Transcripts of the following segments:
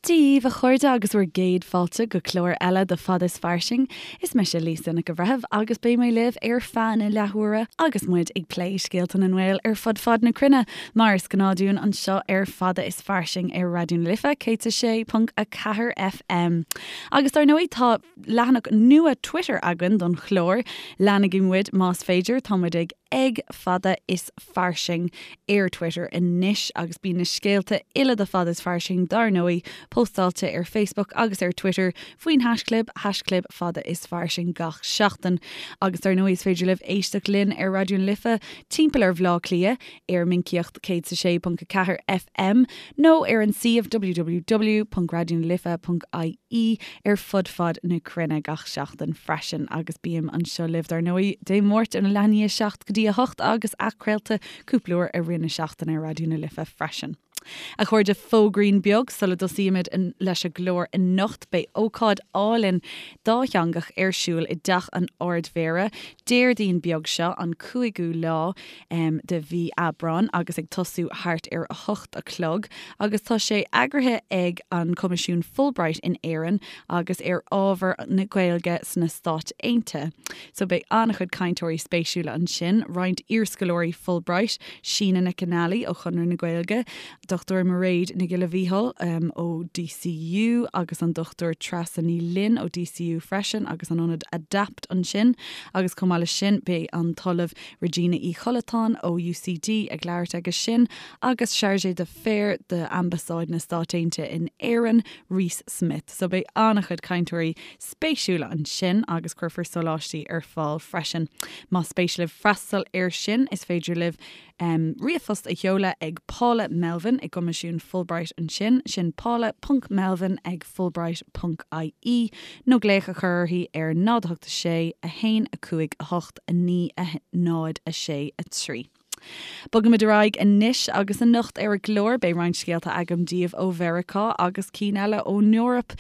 Dia dhaoibh a chairde agus bhur gcéad fáilte go clár eile de Fada is Fairsing. Is mise Lisa Nic an Bhreithimh agus beidh mé libh ar feadh na leathuaire agus muid ag plé scéalta na nGael ar fud fad na cruinne, mar is gnáth dúinn anseo ar Fada is Fairsing ar Raidió na Life 106.4 FM. Agus dar ndóigh tá leathanach nua Twitter againn don chlár, leanaigí muid más féidir, tá muid ag ag Fada is Fairsing ar Twitter anois agus bíonn na scéalta uile de Fada is Fairsing dar ndóigh póstáilte ar Facebook agus ar Twitter faoin haischlib, haischlib Fada is Fairsing gach seachtain. Agus dar ndóigh is féidir libh éisteacht linn ar Raidió na Life timpeall ar Bhaile Átha Cliath ar Minicíocht 106.4 FM nó ar an suíomh www.raidionalife.ie ar fud fad na cruinne gach seachtain freisin agus bím anseo libh dar ndóigh Dé Máirt óna leath i ndiaidh 7 go dtí 8 agus athchraolta cúpla uair i rith na seachtaine ar Raidió na Life freisin. A chairde, fógraín beag sula dtosaímid leis an gclár anocht, beidh ócáid álainn dátheangach ar siúl i dTeach an Ardmhéara Déardaoin beag seo, an cúigiú lá de mhí Aibreáin agus ag tosú thart ar a hocht a chlog agus tá sé eagraithe ag an Coimisiún Fulbright in Éirinn agus ar ábhar na Gaeilge sna Stáit Aontaithe. So beidh an-chuid cainteoirí spéisiúla ansin, roinnt iarscoláirí Fulbright, Síne Nic Fhionnghaile ó Chonradh na Gaeilge, Dr Mairéad Nic Giolla Mhíchíl ó DCU agus an Dr Treasa Ní Fhloinn ó DCU freisin agus an ionad Adapt ansin agus chomh maith leis sin beidh an tOllamh Regina Uí Chollatáin ó UCD ag labhairt aige sin agus Chargé d'Affaires d'Ambasáid na Stát Aontaithe in Éirinn, Reese Smith. So beidh an-chuid cainteoirí spéisiúla ansin agus cuirfear sóláistí ar fáil freisin. Más spéis libh freastal air sin is féidir libh ríomhphost a sheoladh ag Paula Melvin i gCoimisiún Fulbright ansin, sin paula ponc melvin ag fulbright ponc ie, nó glaoch a chur uirthi ar 0 8 6 1 5 8 9 0 6 3. Bogaimid ar aghaidh anois agus anocht ar an gclár beidh roinnt scéalta agam daoibh ó Mheiriceá agus cinn eile ón Eoraip.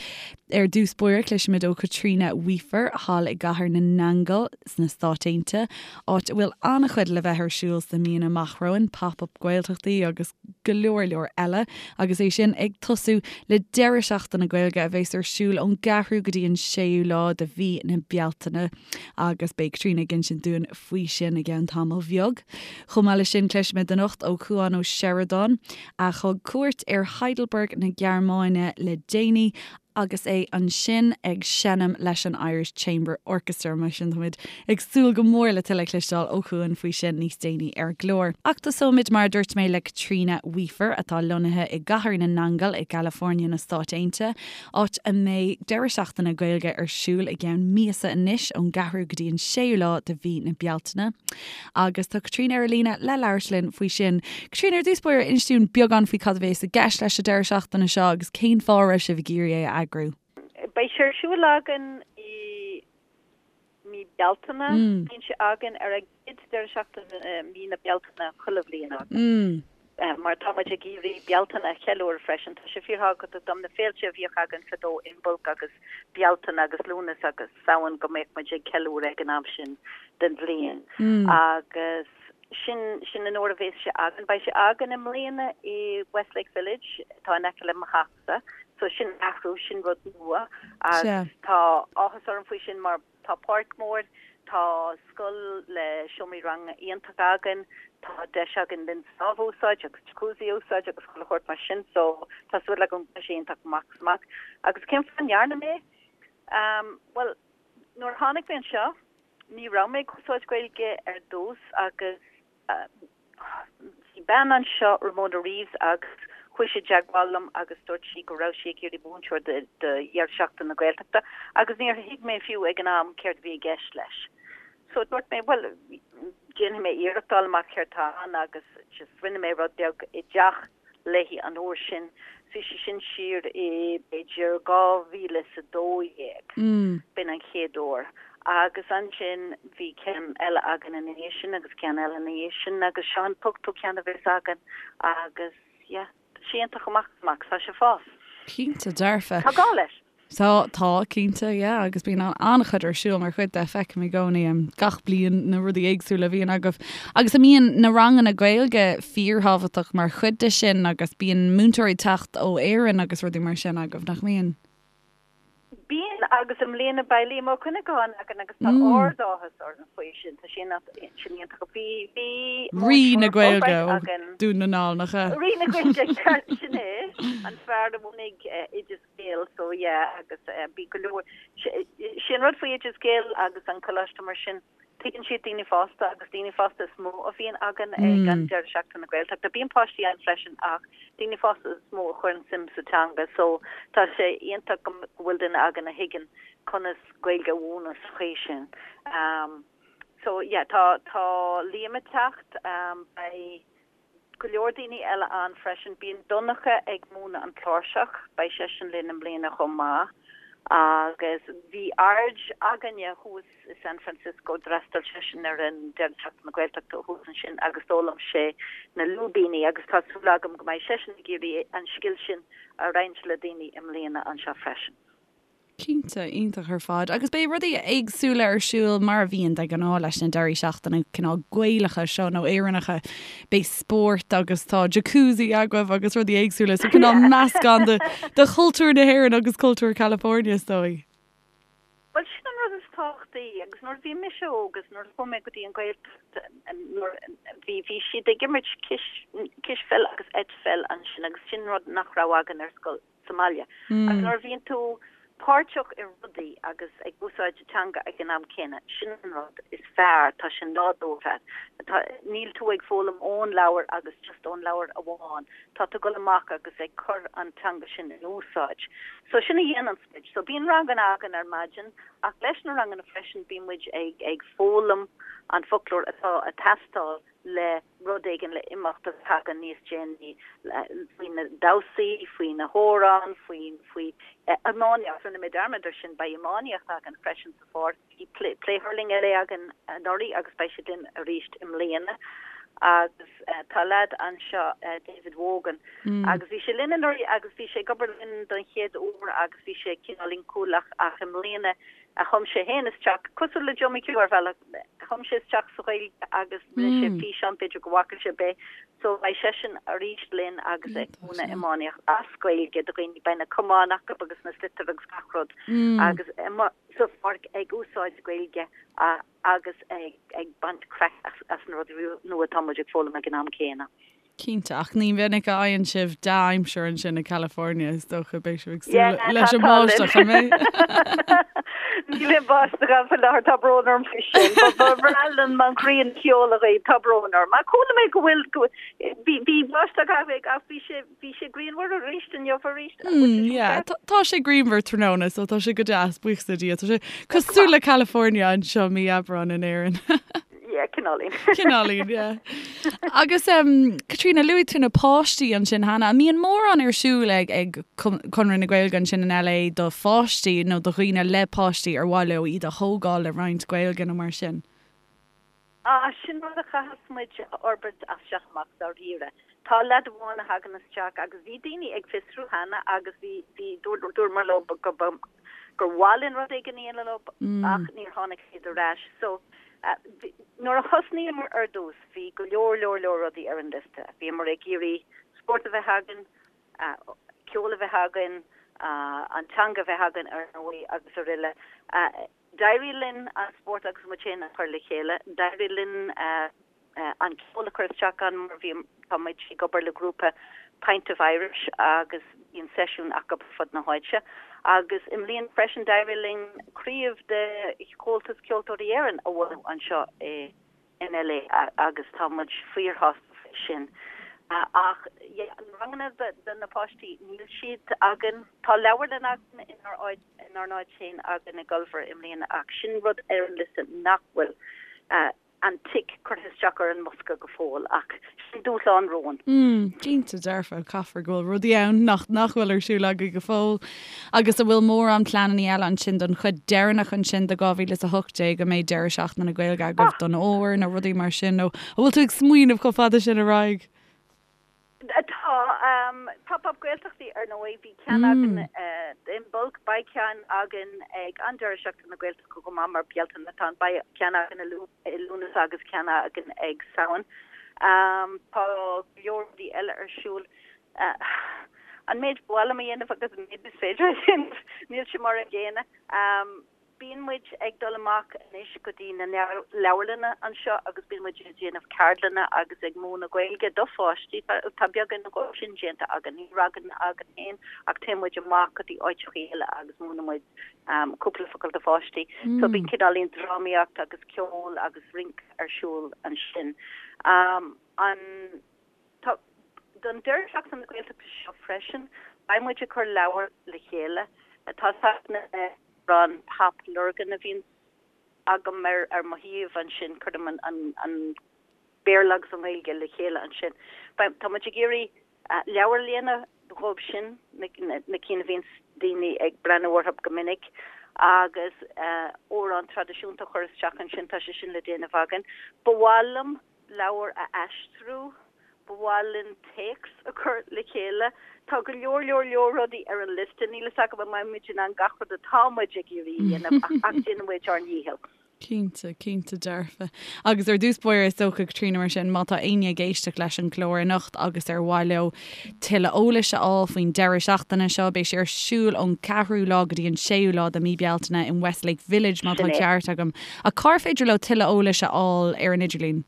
Ar dtús báire cloisfimid ó Chaitríona Weafer thall i gCathair na nAingeal sna Stáit Aontaithe, áit a bhfuil an-chuid le bheith ar siúl sna míonna amach romhainn, Pop-Up Gaeltachtaí agus go leor leor eile, agus é sin ag tosú le deireadh seachtaine Gaeilge a bheas ar siúl ón gceathrú go dtí an séú lá de mhí na Bealtaine agus beidh Caitríona ag insint dúinn faoi sin i gceann tamaill bheag. Chomh maith leis sin cloisfimid anocht ó Chuan Ó Seireadáin, a thug cuairt ar Heidelberg na Gearmáine le déanaí agus é ansin ag seinm leis an Irish Chamber Orchestra. Mar sin táimid ag súil go mór le tuilleadh a chloisteáil ó Chuan faoi sin níos déanaí ar an gclár. Ach tosóimid mar a dúirt mé le Caitríona Weafer atá lonnaithe i gCathair na nAingeal i gCalifornia na Stáit Aontaithe, áit a mbeidh deireadh seachtaine Gaeilge ar siúl i gceann míosa anois, ón gceathrú go dtí an séú lá de mhí na Bealtaine. Agus tá Caitríona ar an líne le labhairt linn faoi sin. Caitríona, ar dtús báire, inis dúinn beagán faoi cad a bhéas i gceist leis an deireadh seachtaine seo agus cén fáth a raibh sibh ag iarraidh é a eagrú. Beidh sé ar siúl againn i mí Bealtaine. Bíonn sé againn ar an gcéad deireadh seachtaine i mí na Bealtaine chuile bhliain againn. Mar tá muid ag iarraidh Bealtaine a cheiliúradh freisin. Tá sé fíorthábhachtach dom na féilte a bhíodh againn fadó, Imbolc agus Bealtaine agus Lúnasa agus Samhain go mbeadh muid ag ceiliúradh ag an am sin den bhliain. Agus sin, sin an uair a bhéas sé againn. Beidh sé againn i mbliana i Westlake Village, atá in aice le mo theachsa. So sin athrú, sin rud nua agus tá áthas orm faoi sin mar Tá páirc mhór, tá scoil le seomraí ranga iontach againn, tá deis againn linn sábh a úsáid agus jacuzzi a úsáid agus chuile shórt mar sin so tá súil agam go mbeidh sé iontach amach is amach. Agus cén fáth a ndearna mé é? Bhuel, nuair a tháinig mé anseo ní raibh mé ag úsáid Gaeilge ar dtús agus Bhí bean anseo, Ramona Reeves, agus chuaigh sí i dteagmháil liom agus dúirt sí go raibh sí ag iarraidh múinteoir do dheireadh seachtaine na Gaeltachta agus níor thuig mé fiú ag an am céard a bhí i gceist leis. So dúirt mé, bhuel, déanfaidh mé iarracht fháil amach céard tá ann agus just rinne mé rud beag i dteach léi an uair sin. Bhí sé sin siar i b'fhéidir 2012, b'in an chéad uair. Agus ansin bhí ceann eile againn ina dhiaidh sin agus ceann eile ina dhiaidh sin agus seo an t-ochtú ceann a bheas againn agus yeah, tá sé iontach amach is amach, tá sé ag fás. Cinnte dearfa. Tá gá leis. Tá, tá, cinnte, yeah, agus bíonn an-chuid ar siúl mar chuid de, feicim i gcónaí gach bliain na rudaí éagsúla a bhíonn agaibh. Agus a mbíonn na ranganna Gaeilge fíorthábhachtach mar chuid de sin agus bíonn múinteoirí ag teacht ó Éirinn agus rudaí mar sin agaibh, nach mbíonn? Bíonn, agus i mbliana beidh Liam Ó Cuinneagáin againn agus tá ard-áthas orainn faoi sin, tá sin iontach. Bhí, bhí Rí na Gaeilge ó Dún na nGall, nach ea? Rí na Gaeilge, ceart, sin é, an fear a bhunaigh Oideas Gael, so yeah, agus bhí go leor, sé an rud faoi Oideas Gael agus an coláiste mar sin, Tuigeann siad daoine fásta agus daoine fásta is mó a bhíonn againn ag an deireadh seachtaine na Gaeltachta. Bíonn páistí ann freisin ach daoine fásta is mó a chuireann suim sa teanga so tá sé iontach go bhfuil duine againn a thuigeann conas Gaeilge a mhúineadh sa chaoi sin. So yeah tá tá Liam ag teacht, beidh go leor daoine eile ann freisin. Bíonn Donncha ag múineadh an chláirseach, beidh seisean linn i mbliana chomh maith. Agus bhí Arj againne thuas i San Francisco, d'fhreastail seisean ar an deireadh seachtaine na Gaeltachta thuas ansin agus d'fhoghlaim sé na lúibíní agus tá súil agam go mbeidh seisean ag iarraidh an scil sin a roinnt le daoine i mbliana anseo freisin. Cinnte, iontach ar fad. Agus beidh rudaí éagsúla ar siúl mar a bhíonn de ghnáth leis na deirí seachtaine cineál Gaelacha seo nó Éireannacha. Beidh spórt agus tá jacuzzi agaibh agus rudaí éagsúla so cineál meascán de de chultúr na hÉireann agus cultúr California is dóigh. Bhuel sin an rud is tábhachtaí agus nuair a bhí mise óg agus nuair a chuaigh mé go dtí an Ghaeltacht nuair bhí bhí siad ag imirt cis cispheil agus eitpheil ansin agus sin rud nach raibh againn ar scoil. sa mbaile. Agus nuair a bhíonn tú páirteach i rudaí agus ag úsáid teanga ag an am céanna, sin an rud is fearr, tá sé nádúrtha. Tá, níl tú ag foghlaim ón leabhar agus just ón leabhar amháin, tá tú ag dul amach agus ag cur an teanga sin in úsáid. So sin a dhéananns muid. So bíonn ranganna againn ar maidin ach leis na ranganna freisin bíonn muid ag ag foghlaim an foclóir atá ag teastáil le rud éigin le imeacht a thagann níos déanaí faoi na damhsaí, faoi na hamhráin, faoi faoi iománaíocht. Rinne mé dearmad ar sin, beidh iománaíocht againn freisin sa pháirc. Bhí Play Hurling LA againn anuraidh agus beidh siad linn arís i mbliana. Agus tá leaid anseo, David Wogan, agus bhí sé linn anuraidh agus bhí sé ag obair linn don chéad uair agus bhí sé cineál inchúlach ach i mbliana Chum sé féin isteach, cosúil le Joe McHugh ar bhealach, chum sé isteach sa Ghaeilge agus rinne sé físeán, b'fhéidir go bhfaca sibh é. So beidh seisean arís linn agus ag múineadh iománaíocht as Gaeilge do dhaoine, beidh na camáin acu agus na sliotair agus gach rud agus sa pháirc ag úsáid Gaeilge agus ag baint craic as na rudaí nua atá muid ag foghlaim ag an am céanna. Cinnte, ach ní minic a fhaigheann sibh dea-aimsir ansin i California, is dócha. Beidh sibh ag súil leis an mbáisteach, an mbeidh? Níl aon bháisteach ann faoi láthair, tá brón orm faoi sin. Ba bhreá liom an ghrian a sheoladh dhaoibh, tá brón orm. Ach chuala mé go bhfuil, bhí, bhí báisteach ach bhí sé, bhí sé grianmhar arís inniu arís. Yeah, tá sé grianmhar tráthnóna, so tá sé go deas, buíochas le Dia. Tá sé cosúil le California anseo mí Aibreáin in Éirinn. Yeah, cineáilín. Cineáilín, yeah. Agus um, Caitríona, luaigh tú na páistí ansin cheana. An mbíonn mórán ar siúl ag, ag Conradh na Gaeilge ansin in LA do pháistí nó do dhaoine le páistí ar mhaith leo iad a thógáil le roinnt Gaeilge nó mar sin? Ah, sin rud a chaithfeas muid a fhorbairt as seo amach dáiríre. Tá leaid amháin a thagann isteach agus bhí daoine ag fiosrú cheana agus bhí, bhí, dúramar leo go, gur mhaith linn rud éigin a dhéanamh leo ach níor tháinig siad ar ais. So, Nuair a thosnaíomar ar dtús, bhí go leor, leor, leor rudaí ar an liosta. Bhíomar ag iarraidh spórt a bheith againn, ceol a bheith againn, an teanga a bheith againn ar ndóigh agus aroile. D'éirigh linn an spórt agus muid féin a chur le chéile. D'éirigh linn an ceol a chur isteach ann mar bhí, tá muid ag obair le grúpa Pint of Irish agus bíonn seisiúin acu ar fud na háite. Agus i mbliana freisin d'éirigh linn craobh de Chomhaltas Ceoltóirí Éireann a bhunú anseo in LA agus tá muid fíorshásta faoi sin. Ach yeah, na ranganna do na páistí, níl siad againn. Tá leabharlann againn inár áit, inár n-áit féin againn i gCulver i mbliana ach sin rud ar an liosta nach bhfuil. an tic curtha isteach ar an mbosca go fóill, ach sin dúshlán romhainn. Mm, cinnte dearfa, caithfear go bhfuil rudaí ann nach nach bhfuil ar siúl agaibh go fóill. Agus an bhfuil mórán pleananna eile ansin don chuid deireanach ansin de 2018 an mbeidh deireadh seachtaine na Gaeilge agaibh don fhómhar nó rudaí mar sin nó an bhfuil tú ag smaoineamh chomh fada sin ar aghaidh? Tá. Pop Up Gaeltachtaí ar ndóigh, bhí ceann againn. Imbolc. Beidh ceann againn ag an deireadh seachtaine na Gaeltachta chomh maith mar Bealtaine atá ann. Beidh ceann againn i Lúnasa agus ceann againn ag Samhain. Tá go leor rudaí eile ar siúl. An méid ba mhaith liom a dhéanamh agus an méid is féidir a dhéanamh, níl sé mar an gcéanna. Bíonn muid ag dul amach anois go dtí na leabharlanna anseo agus bíonn muid ag déanamh ceardlanna agus ag múineadh Gaeilge do pháistí. Tá beagán dhó sin déanta againn. Ní ranganna againn féin ach téann muid amach go dtí áiteachaí eile agus múineann muid cúpla focal do pháistí. So bíonn cineáilín drámaíocht agus ceol agus rince ar siúl ansin. An. Tá, don deireadh seachtaine na Gaeltachta seo freisin, beidh muid ag cur leabhar le chéile. Tá na amhráin Pop Lurgan a bhíonn agam ar ar mo shuíomh ansin, cuirim an an an Béarla agus an Ghaeilge le chéile ansin. Beidh, tá muid ag iarraidh leabhar a dhéanamh dhóibh sin, na na cinn a bhíonns daoine ag breathnú orthu go minic, agus amhrán traidisiúnta a chur isteach ansin, tá sé sin le déanamh againn. Ba mhaith liom leabhar a aistriú, ba mhaith linn téacs a chur le chéile. Tá go leor leor leor rudaí ar an liosta, níl fhios agam an mbeidh muid in ann gach rud atá muid ag iarraidh a dhéanamh ach ach déanfaidh muid ár ndícheall. Cinnte, cinnte dearfa. Agus ar dtús báire is dócha, Caitríona, mar sin, má tá éinne ag éisteacht leis an gclár anocht agus ar mhaith leo tuilleadh eolais a fháil faoin deireadh seachtaine seo, beidh sé ar siúl ón ceathrú lá go dtí an séú lá de mí Bealtaine in Westlake Village má tá an ceart agam. Ach cár féidir leo tuilleadh eolais a fháil ar an idirlíon?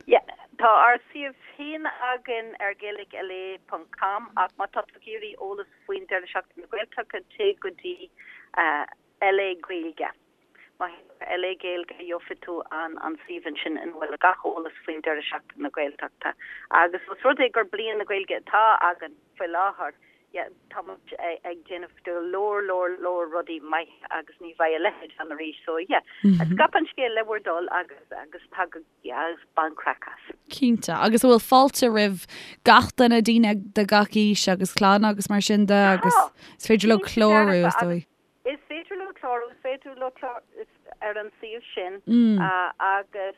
Yeah, tá ár suíomh féin againn ar gaelicla ponc com ach má tá tú ag iarraidh eolas faoin Deireadh Seachtaine na Gaeltachta téigh go dtí LA Gaeilge. Má théann tú ar LA Gaeilge gheobhaidh tú an an suíomh ansin ina bhfuil gach eolas faoin Deireadh Seachtaine na Gaeltachta. Agus os rud é gur Bliain na Gaeilge atá againn faoi láthair, yeah, tá muid ag déanamh go leor leor leor rudaí maithe agus ní bheidh a leithéid ann arís so yeah, scaip an scéal le bhur dtoil agus agus tagaigí agus bain craic as. Cinnte. Agus an bhfuil fáilte roimh gach duine, daoine de gach aois agus clann agus mar sin de agus is féidir leo clárú is dóigh. Is féidir leo clárú, is féidir leo clárú ar an suíomh sin agus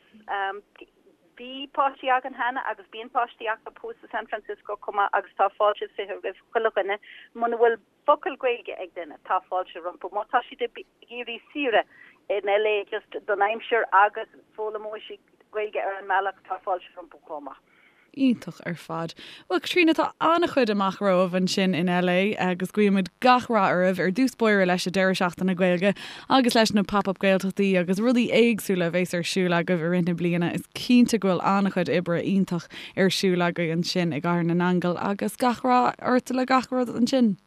bhí páistí againn cheana agus bíonn páistí acu thuas i San Francisco chomh maith agus tá fáilte 20 roimh chuile dhuine. Muna bhfuil focal Gaeilge ag duine, tá fáilte rompu. Má tá siad ag iarraidh saoire in LA just don aimsir agus foghlaimeoidh siad Gaeilge ar an mbealach, tá fáilte rompu chomh maith. Iontach ar fad. Bhuel, Caitríona, tá an-chuid amach romhaibh ansin in LA agus guímid gach rath oraibh, ar dtús báire leis an deireadh seachtaine Gaeilge agus leis na Pop Up Gaeltachtaí agus rudaí éagsúla a bheas ar siúl agaibh i rith na bliana. Is cinnte go bhfuil an-chuid oibre iontach ar siúl agaibh ansin i gCathair na nAingeal agus gach rath ort le gach rud ansin.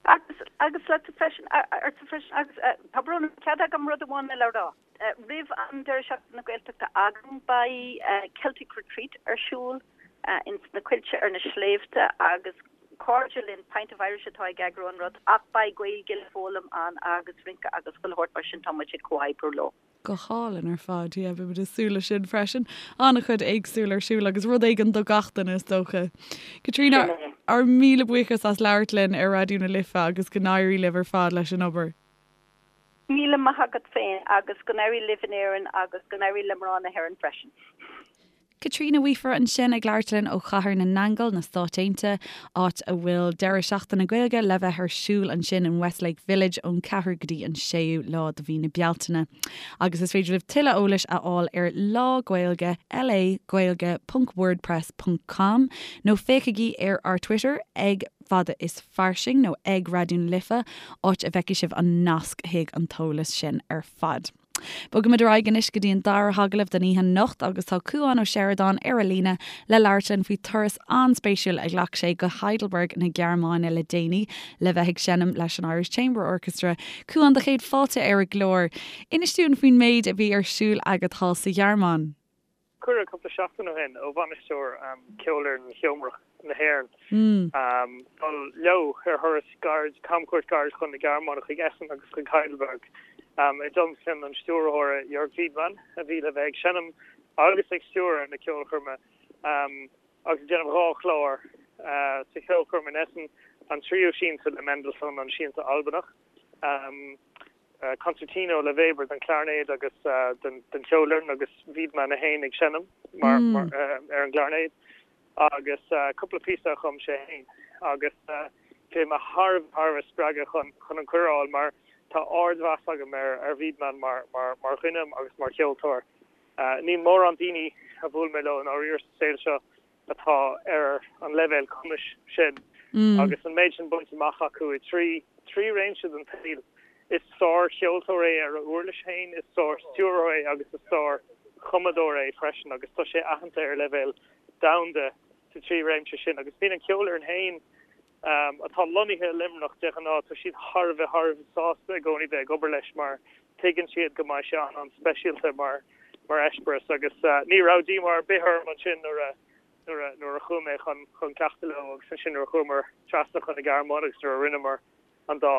Agus, agus leatsa freisin, ortsa freisin agus tá brón orm, cead agam rud amháin eile a rá? Roimh an deireadh seachtaine na Gaeltachta againn beidh Celtic Retreat ar siúl ins na coillte ar na sléibhte agus cairde linn Pint of Irish atá ag eagrú an rud ach beidh Gaeilge le foghlaim ann agus rince agus chuile shórt mar sin tá muid ag comhoibriú leo. Go hálainn ar fad, yeah, beidh muid ag súil leis sin freisin. An-chuid éagsúil ar siúl agus rud éigin do gach duine is dócha. Caitríona, ár míle buíochas as labhairt linn ar Raidió na Life agus go n-éirí libh ar fad leis an obair. Míle maith agat féin agus go n-éirí libh in Éirinn agus go n-éirí le mná na hÉireann freisin. Caitríona Weafer ansin ag labhairt linn ó Chathair na nAingeal, na Stáit Aontaithe, áit a bhfuil deireadh seachtaine Gaeilge le bheith ar siúl ansin in Westlake Village ón 4ú go dtí an 6ú lá de mhí na Bealtaine. Agus is féidir libh tuilleadh eolais a fháil ar Lá Gaeilge LA Gaeilge ponc wordpress ponc com nó féachaigí ar ár Twitter ag Fada is Fairsing nó ag Raidió na Life, áit a bhfeicfidh sibh an nasc chuig an t-eolas sin ar fad. Bogaimid ar aghaidh anois go dtí an dara hagallamh den oíche anocht agus tá Cúán Ó Seireadáin ar an líne le labhairt linn faoi turas an-spéisiúil a ghlac sé go Heidelberg na Gearmáine le déanaí le bheith ag seinm leis an Irish Chamber Orchestra. Cúán, do chéad fáilte ar an gclár. Inis dúinn faoin méid a bhí ar siúl agat thall sa Ghearmáin. Cuireadh cúpla seachtain ó shin ó bhainisteoir Cheolfhoireann Sheomrach na hÉireann dul leo ar thuras gairid, camchuairt ghairid chun na Gearmáine, chuig Essen agus chuig Heidelberg, i dtionlacan an stiúrthóra Jörg Widmann, a bhí le bheith ag seinm agus ag stiúradh na ceolchoirme agus ag déanamh 2 chlár sa cheolchoirm in Essen, an tríú siansa le Mendelssohn, an Siansa Albanach. Concertino le Weber don chlairnéad agus don cheolfhoireann agus Widmann é féin ag seinm mar ar an gclairnéad agus cúpla píosa a chum sé féin agus. Bhí mé thar a bheith spreagtha chun chun an cuireadh a fháil mar tá ardmheas agam ar ar Wiedemann mar mar mar dhuine agus mar cheoltóir. Níl mórán daoine a bhuail mé leo i ndáiríre sa saol seo atá ar an leibhéal cumais sin agus an méid sin bainte amach acu i dtrí trí réimse den tsaol. Is sár-cheoltóir é ar a uirlis féin, is sár-stiúrthóir é agus is sár-chumadóir é freisin agus tá sé aitheanta ar leibhéal domhanda sa trí réimse sin agus bíonn an cheolfhoireann féin atá lonnaithe i Luimneach de ghnáth, tá siad thar a bheith thar a bheith sásta i gcónaí bheith ag obair leis mar tuigeann siad go mbeidh sé an-an-speisialta mar mar eispéireas agus ní raibh díomá ar bith orm ansin nuair a nuair a nuair a chuaigh mé chun chun cleachtadh leo agus ansin nuair a chuamar trasna chun na Gearmáine agus nuair a rinneamar an dá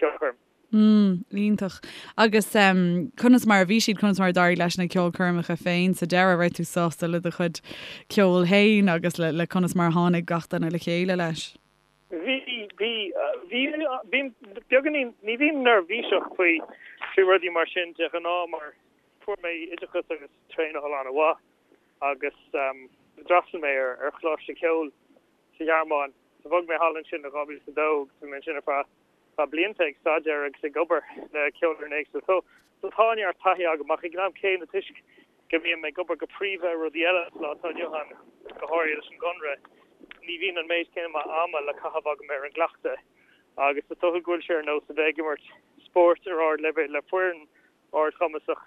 cheolchoirm. Mm, iontach. Agus conas mar a bhí siad, conas mar a d'éirigh leis na ceolchoirmeacha féin sa deireadh? Raibh tú sásta le do chuid ceoil féin agus le, le conas mar a tháinig gach duine le chéile leis? Bhí, bhí, bhí, bím beagáinín, ní bhím neirbhíseach faoi, faoi rudaí mar sin de ghnáth mar fuair mé oideachas agus traenáil an-mhaith agus d'fhreastail mé ar, ar choláiste ceoil sa Ghearmáin. So bhog mé thall ansin i 2002 agus bhí mé ansin ar feadh feadh blianta ag staidéar agus ag obair le ceolfhoireann éagsúil. So so tá neart taithí agam ach ag an am céanna toisc go mbím ag obair go príomha ar rudaí eile sa lá atá inniu ann, go háirithe leis an gConradh, ní bhíonn an méid céanna ama le caitheamh agam ar an gcleachtadh agus is dócha go bhfuil sé ar nós a bheith ag imirt spóirt ar ardleibhéal le foireann ardchumasach,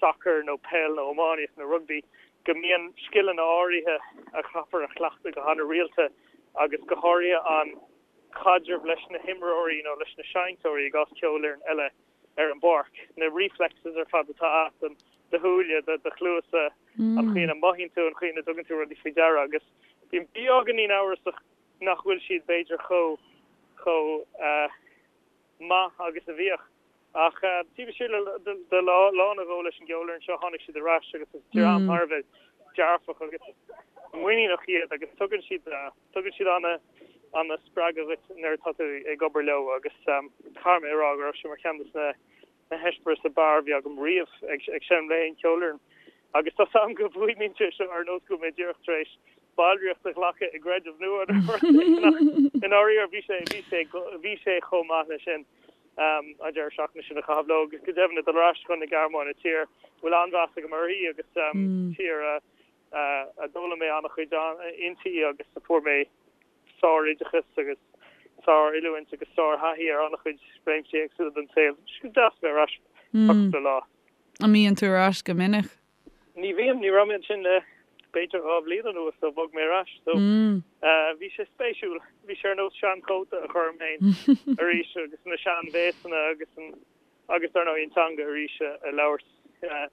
sacar nó peil nó iománaíocht nó rugbaí, go mbíonn scileanna áirithe a chaithfear a chleachtadh go han-rialta agus go háirithe an caidreamh leis na himreoirí nó leis na seinnteoirí i gcás ceolfhoireann eile ar an bpáirc, na reflexes ar fad atá agat, do shúile, do chluasa, an chaoi ina mothaíonn tú, an chaoi ina dtugann tú rudaí faoi deara agus bím beagáinín amhrasach nach bhfuil siad b'fhéidir chomh chomh maith agus a bhíodh. Ach taobh istigh de lá nó dhó leis an gceolfhoireann seo tháinig siad ar ais agus is dream thar a bheith dearfach agus muiníneach iad agus tugann siad tugann siad ana ana spreagadh dhuit nuair atá tú ag obair leo agus caithfidh mé a rá go raibh sé mar cheann de na na heispéiris ab fhearr a bhí agam riamh ag ag seinm le haon cheolfhoireann. Agus tá 's agam go bhfuaimníonn sé seo ar nós go bhfuil mé díreach tar éis ballraíocht a ghlacadh i gcreideamh nua nó rud éigin ach i ndáiríre bhí sé, bhí sé, bhí sé chomh maith leis sin an deireadh seachtaine sin a chaitheamh leo agus go deimhin ag dul ar ais chun na Gearmáine, tír a bhfuil an-mheas agam uirthi agus tír a a d'fhoghlaim mé an-chuid inti agus a fuair mé sároideachas agus sár-oiliúint agus sár-thaithí ar an-chuid réimsí éagsúla den saol. Tá sé deas a bheith ar ais ar cúpla lá. An mbíonn tú ar ais go minic? Ní bhím, ní raibh mé ansin le b'fhéidir 2 bhliain anuas ó bhog mé ar ais so bhí sé spéisiúil. Bhí sé ar nós seanchóta a chur orm féin arís agus na seanbhéasanna agus an agus dar ndóigh an teanga arís a labhairt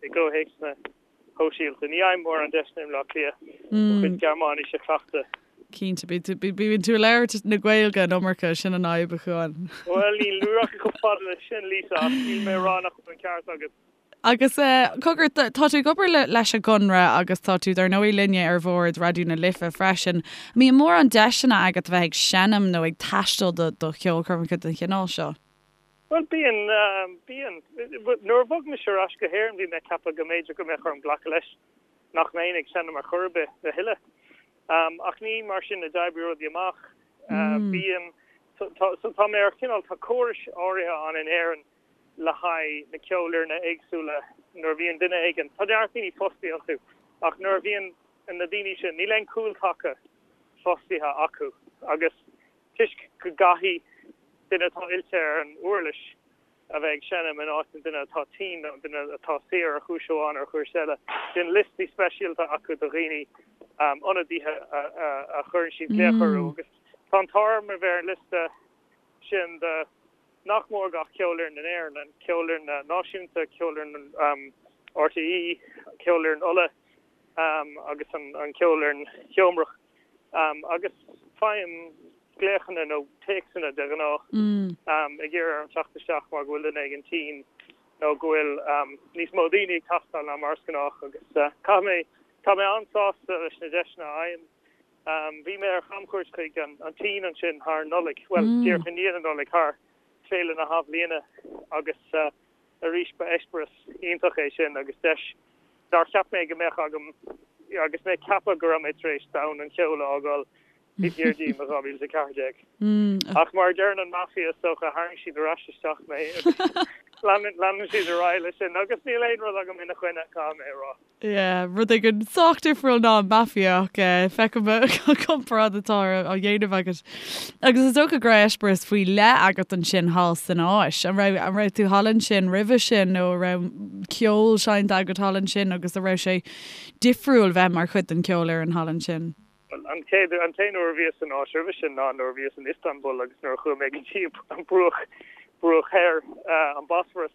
i gcomhthéacsanna shóisialta. Ní fhaighim mórán deiseanna i mBleá Cliath mo chuid Gearmáinise a chleachtadh. Cinnte, bíonn tú ag labhairt na Gaeilge an iomarca, sin an fhadhb, a Chuáin. Bhuel, ní rachainn chomh fada leis sin, Lisa, ach níl mé ag rá nach bhfuil an ceart agat. Agus, cogar, tá tú ag obair leis an gConradh agus tá tú, dar ndóigh, linne ar bhord Raidió na Life freisin. An mbíonn mórán deiseanna agat a bheith ag seinm nó ag taisteal do cheolchoirmeacha den chineál seo? Bhuel, bíonn, bíonn. Nuair a bhog mise ar ais go hÉirinn bhí mé ag ceapadh go mb'fhéidir go mbeadh orm glacadh leis nach mbeinn ag seinm ar chor ar bith a thuilleadh. Ach ní mar sin a d'oibrigh rudaí amach. Bíonn, so tá mé ar chineál, tá córais áirithe ann in Éirinn le haghaidh na ceolfhoirne éagsúla nuair a bhíonn duine éigin, tá neart daoine fostaithe iontu, ach nuair a bhíonn na daoine sin, níl aon cúltaca fostaithe acu agus toisc go gcaithfidh duine atá oilte ar an uirlis a bheith ag seinm in áit an duine atá tinn nó an duine atá saor ar chúis amháin nó ar chúis eile. Bíonn liostaí speisialta acu de dhaoine, ionadaithe a chuireann siad glaoch orthu agus tá an t-ádh orm a bheith ar an liosta sin de nach mór gach ceolfhoireann in Éirinn, an Ceolfhoireann Náisiúnta, Ceolfhoireann RTÉ, Ceolfhoireann Uladh agus an Cheolfhoireann Sheomrach. Agus faighim glaochanna nó téacsanna de ghnáth ag iarraidh orm teacht isteach mar go bhfuil duine éigin tinn nó go bhfuil níos mó daoine ag teastáil ná mar is gnách agus caithfidh mé, tá mé an-sásta leis na deiseanna a fhaighim. Bhí mé ar chamchuairt chuig an tSín ansin thar Nollaig, bhuel díreach i ndiaidh na Nollag, thar Féile na hAthbhliana agus Arís, ba eispéireas iontach é sin agus deis nár cheap mé go mbeadh agam agus mé ag ceapadh go raibh mé tar éis domhan an cheoil a fhágáil. Taobh thiar díom i 2014. Ach mar a deireann an Mafia is dócha, tharraing siad ar ais isteach mé agus leanann siad ar aghaidh leis sin agus níl aon rud agam ina choinne, caithfidh mé a rá. Yeah, rud éigin sách difriúil ná an Mafia ach feicim an comparáid atá á dhéanamh agat. Agus is dócha go raibh eispéireas faoi leith agat ansin thall san Áis. An raibh, an raibh tú thall ansin roimhe sin nó an raibh ceol seinnte agat thall ansin agus an raibh sé difriúil bheith mar chuid den cheolfhoireann thall ansin? Bhuel, an chéad, an t-aon uair a bhíos san Áis roimhe sin ná nuair a bhíos in Istanbul agus nuair a chuaigh mé go dtí an bruach, bruach thoir, an Bosphorus.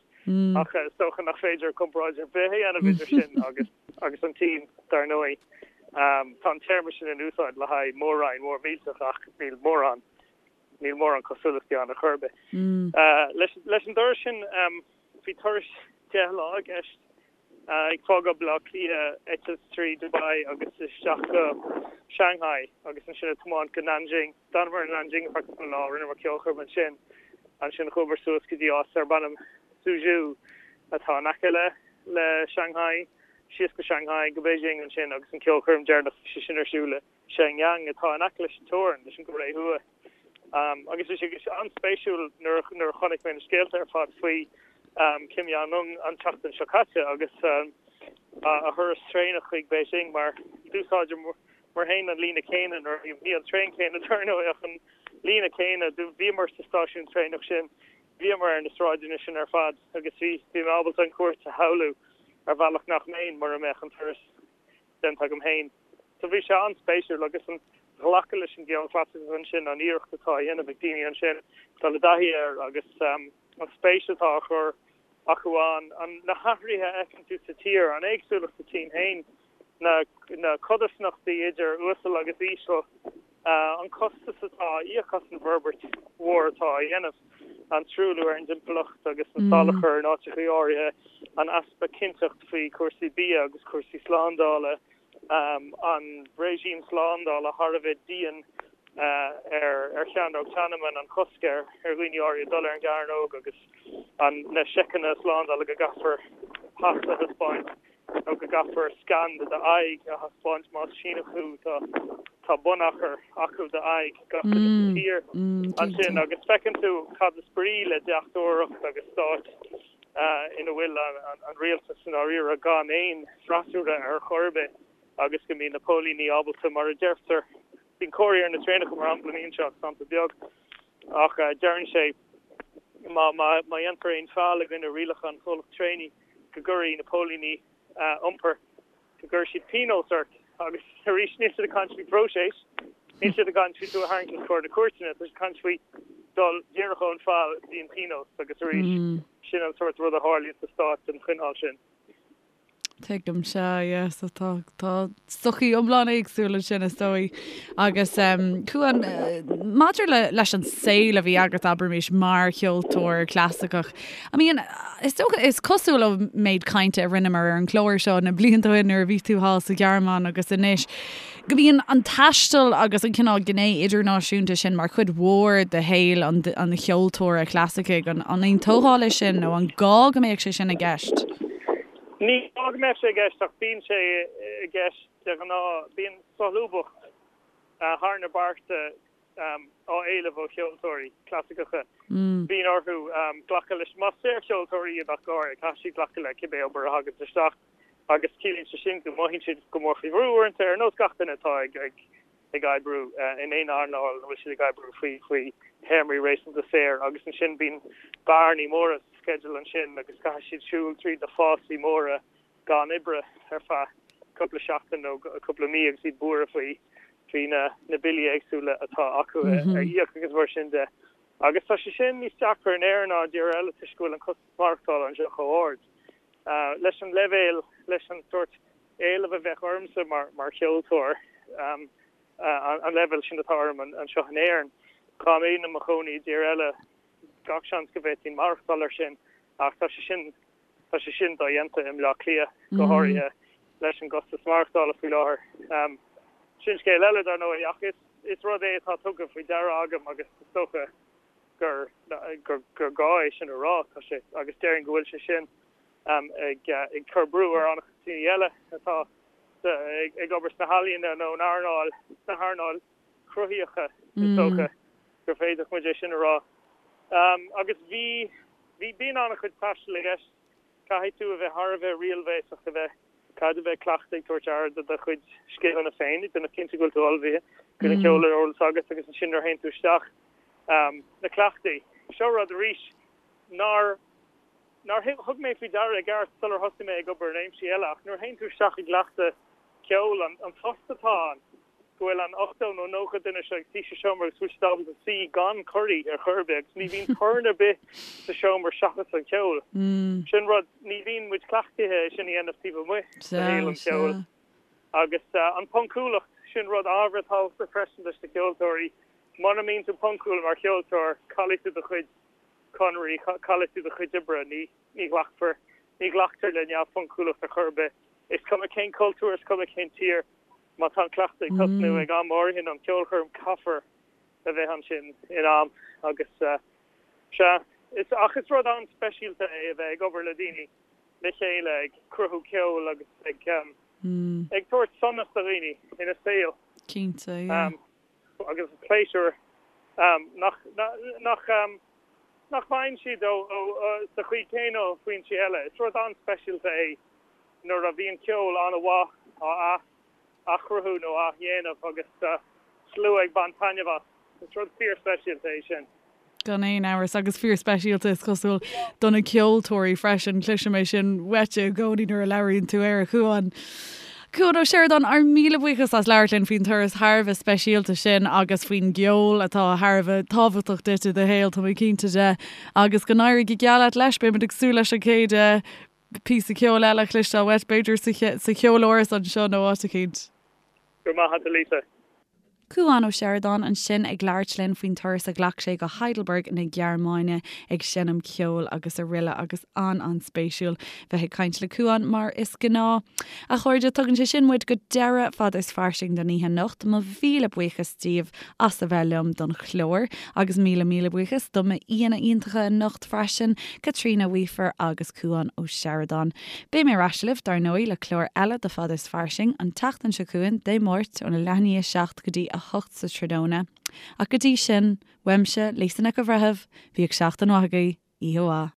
Ach is dócha nach féidir comparáid ar bith a dhéanamh idir sin agus, agus an tSín, dar ndóigh. Tá an téarma sin in úsáid le haghaidh mór-roinn mhór millteach ach níl mórán, níl mórán cosúlachtaí ann ar chor ar bith. Leis, leis an dturas sin, bhí turas 10 lá i gceist. Ag fágáil Baile Átha Cliath, eitilt trí Dubai agus isteach go Shanghai agus ansin ag tiomáint go Nanjing. D'fhanamar in Nanjing ar feadh cúpla lá, rinneamar ceolchoirm ansin. Ansin chuamar suas go dtí áit darb ainm Suzhou atá in aice le le Shanghai, síos go Shanghai, go Beijing ansin agus an ceolchoirm deireanach bhí sé sin ar siúl i Shenyang atá in aice leis an teorainn leis an gCóiré Thuaidh. Agus bhí sé an-spéisiúil nuair a chonaic mé na scéalta ar fad faoi Kim Jong-un an tseachtain seo caite agus a thuras traenach chuig Beijing mar d'úsáideamar féin an líne céanna nuair a bhí an traein céanna dar ndóigh ach an líne céanna bhíomar sa stáisiún traenach sin bhíomar ar na sráideanna sin ar fad agus bhí bhí mé ábalta an chuairt a shamhlú ar bhealach nach mbeinn mura mbeadh an turas déanta agam féin. So bhí sé an-spéisiúil agus an ghlacadh leis an gceol clasaiceach ansin, an iarracht atá á dhéanamh ag daoine ansin dul i dtaithí air agus an spéis atá á chur acu ann, an, na hathruithe a fheiceann tú sa tír, an éagsúlacht sa tSín féin, na, na codarsnachtaí idir uasal agus íseal. An costas atá á íoc as an bhforbairt mhór atá á dhéanamh, an truailliú ar an dtimpeallacht agus an salachar in áiteacha áirithe, an easpa cinnteacht faoi chúrsaí bia agus cúrsaí slándála, an réigím slándála thar a bheith dian ar Chearnóg Tiananmen, an cosc ar dhaoine áirithe dul ar an gcearnóg agus na seiceanna slándála go gcaithfear pas a thaispeáint. nó go gcaithfear scan de d'aghaidh a thaispeáint más Síneach thú, tá tá bunachar acu d'aghaidh gach duine sa tír ansin agus feiceann tú cad is brí le deachtóireacht agus stát ina bhfuil an rialtas i ndáiríre gan aon freasúra ar chor ar bith agus go mbíonn na póilíní ábalta, mar a deirtear, bíonn comharthaí ar na traenacha mar shampla, ní seo ach sampla beag, ach deireann sé má má dhéantar aon feall i gcoinne rialacha an chomhlacht traenaí, go gcuirfidh na póilíní iompair, go gcuirfidh siad pionós ort agus arís níl siad ag caint faoi phróiseas, níl siad ag caint faoi tú a tharraingt os comhair na cúirteanna, tá siad ag caint faoi dul díreach ón feall go dtí an pionós agus arís sin an sórt rud a tharlaíonn sa stát den chineál sin. Tuigim, sea, yeah, so tá, tá sochaí iomlán éagsúil ansin is dóigh. Agus em, Cuan, maidir le, leis an saol a bhí agat, abraimis, mar cheoltóir clasaiceach, I mean, is dócha, is cosúil ón méid cainte a rinneamar ar an chlár seo na blianta ó shin nuair a bhí tú thall sa Ghearmáin agus anois, go mbíonn an taisteal agus an cineál gné idirnáisiúnta sin mar chuid mhór de shaol an, an cheoltóra chlasaicigh. An, an aontófá leis sin nó an gá go mbeadh sé sin i gceist? Ní gá go mbeadh sé i gceist ach bíonn sé i gceist de ghnáth. Bíonn solúbthacht thar na bearta á éileamh ó cheoltóirí clasaiceacha. Bíonn orthu glacadh leis, más saorcheoltóirí iad ach go háirithe, caithfidh siad glacadh le cibé obair a thaganns isteach agus ciallaíonn sé sin go mothaíonn siad go mór faoi bhrú uaireanta, ar nós gach duine atá ag ag oibriú in aon earnáil ina bhfuil siad ag oibriú faoi faoi théarmaí réasúnta saor agus ansin bíonn bearnaí móra sa sceideal ansin agus caithfidh siad siúl tríd na fásaí móra gan oibre ar feadh cúpla seachtain nó cúpla mí agus iad buartha faoi faoi na na billí éagsúla atá acu a íoc agus mar sin de. Agus tá sé sin níos deacra in Éirinn ná i dtíortha eile toisc go bhfuil an costas maireachtála anseo chomh hard. Leis an leibhéal, leis an sórt éileamh a bheadh ormsa mar mar cheoltóir, an leibhéal sin atá orm anseo in Éirinn, dá mbeinn i mo chónaí i dtír eile, gach seans go bhféadfainn maireachtáil air sin ach tá sé sin Tá sé sin dodhéanta i mBleá Cliath, go háirithe leis an gcostas maireachtála faoi láthair. Sin scéal eile, dar ndóigh, ach is rud é atá tugtha faoi deara agam agus is dócha gur gur gá é sin a rá. Tá sé, agus déarfainn go bhfuil sé sin ag cur brú ar an-chuid daoine eile atá ag obair sna healaíona nó in earnáil, sna hearnáil. cruthaíocha, is dócha gur féidir muid é sin a rá. Agus bhí, bhí, bíonn an-chuid taistil i gceist. Caithfidh tú a bheith thar a bheith riailbhéasach, a bheith, caithfidh tú a bheith cleachta ag tabhairt aire do do chuid scileanna féin, ag déanamh cinnte go bhfuil tú ullmhaithe, go bhfuil an ceol ar eolas agat agus ansin nuair a théann tú isteach, na cleachtaí. Seo rud arís nár, nár thug mé faoi deara i gceart sular thosaigh mé ag obair i réimsí eile ach nuair a théann tú isteach i gcleachtadh ceoil, an tost atá ann, go bhfuil an 80 nó 90 duine seo ag suí sa seomra agus go bhfuil siad ábalta suí gan corraí ar chor ar bith agus ní bhíonn torann ar bith sa seomra seachas an ceol. Sin rud, ní bhíonn muid cleachtaithe é sin a dhéanamh taobh amuigh de shaol an cheoil. Agus an phoncúlacht, sin rud ábhar tábhachtach freisin leis na ceoltóirí. Mura mbíonn tú poncúil mar cheoltóir, caillfidh tú do chuid conairí, caillfidh tú do chuid oibre, ní ní ghlacfar, ní ghlactar le neamhphoncúlacht ar chor ar bith. Is cuma cén cultúr, is cuma cén tír, má tá an cleachtadh ag tosnú ag am áirithe nó an ceolchoirm, caithfear a bheith ansin in am agus sea, is, ach is rud an-speisialta é a bheith ag obair le daoine le chéile ag cruthú ceoil agus ag ag tabhairt sonas do dhaoine ina saol. Cinnte, yeah. Agus pléisiúr nach, nach, nach bhfaigheann siad ó, ó, sa chaoi chéanna ó foinsí eile. Is rud an-speisialta é nuair a bhíonn ceol an-mhaith á athchruthú nó á dhéanamh agus slua ag baint taitneamh as. Is rud fíorspeisialta é sin. Gan aon amhras, agus fíorspeisialta is cosúil do na ceoltóirí freisin. Cloisim é sin uait i gcónaí nuair a labhraíonn tú air, a Chuáin. Cuan Ó Seireadáin, ár míle buíochas as labhairt linn faoin turas thar a bheith speisialta sin agus faoin gceol atá thar a bheith tábhachtach duit i do shaol, tá mé cinnte de. Agus go n-éirí go geal leat leis, beimid ag súil leis an chéad píosa ceoil eile a chloisteáil uait, b'fhéidir sa cheoláras anseo nó áit eicínt. Go raibh maith agat, a Lisa. Cuan Ó Seireadáin ansin ag labhairt linn faoin turas a ghlac sé go Heidelberg na Gearmáine ag seinm ceoil agus aroile agus an-an-spéisiúil bheith ag caint le Cuan mar is gnáth. A chairde, tugann sé sin muid go deireadh Fada is Fairsing don oíche anocht. Mo mhíle buíochas díobh as a bheith liom don chlár agus míle míle buíochas do m'aíonna iontacha anocht freisin, Caitríona Weafer agus Cuan Ó Seireadáin. Beidh mé ar ais libh, dar ndóigh, le clár eile de Fada is Fairsing an tseachtain seo chugainn, Dé Máirt, óna leath i ndiaidh a 7 go dtí 8 sa tráthnóna. Ach go dtí sin, uaimse, Lisa Nic an Bhreithimh, bíodh seachtain mhaith agaibh, oíche mhaith.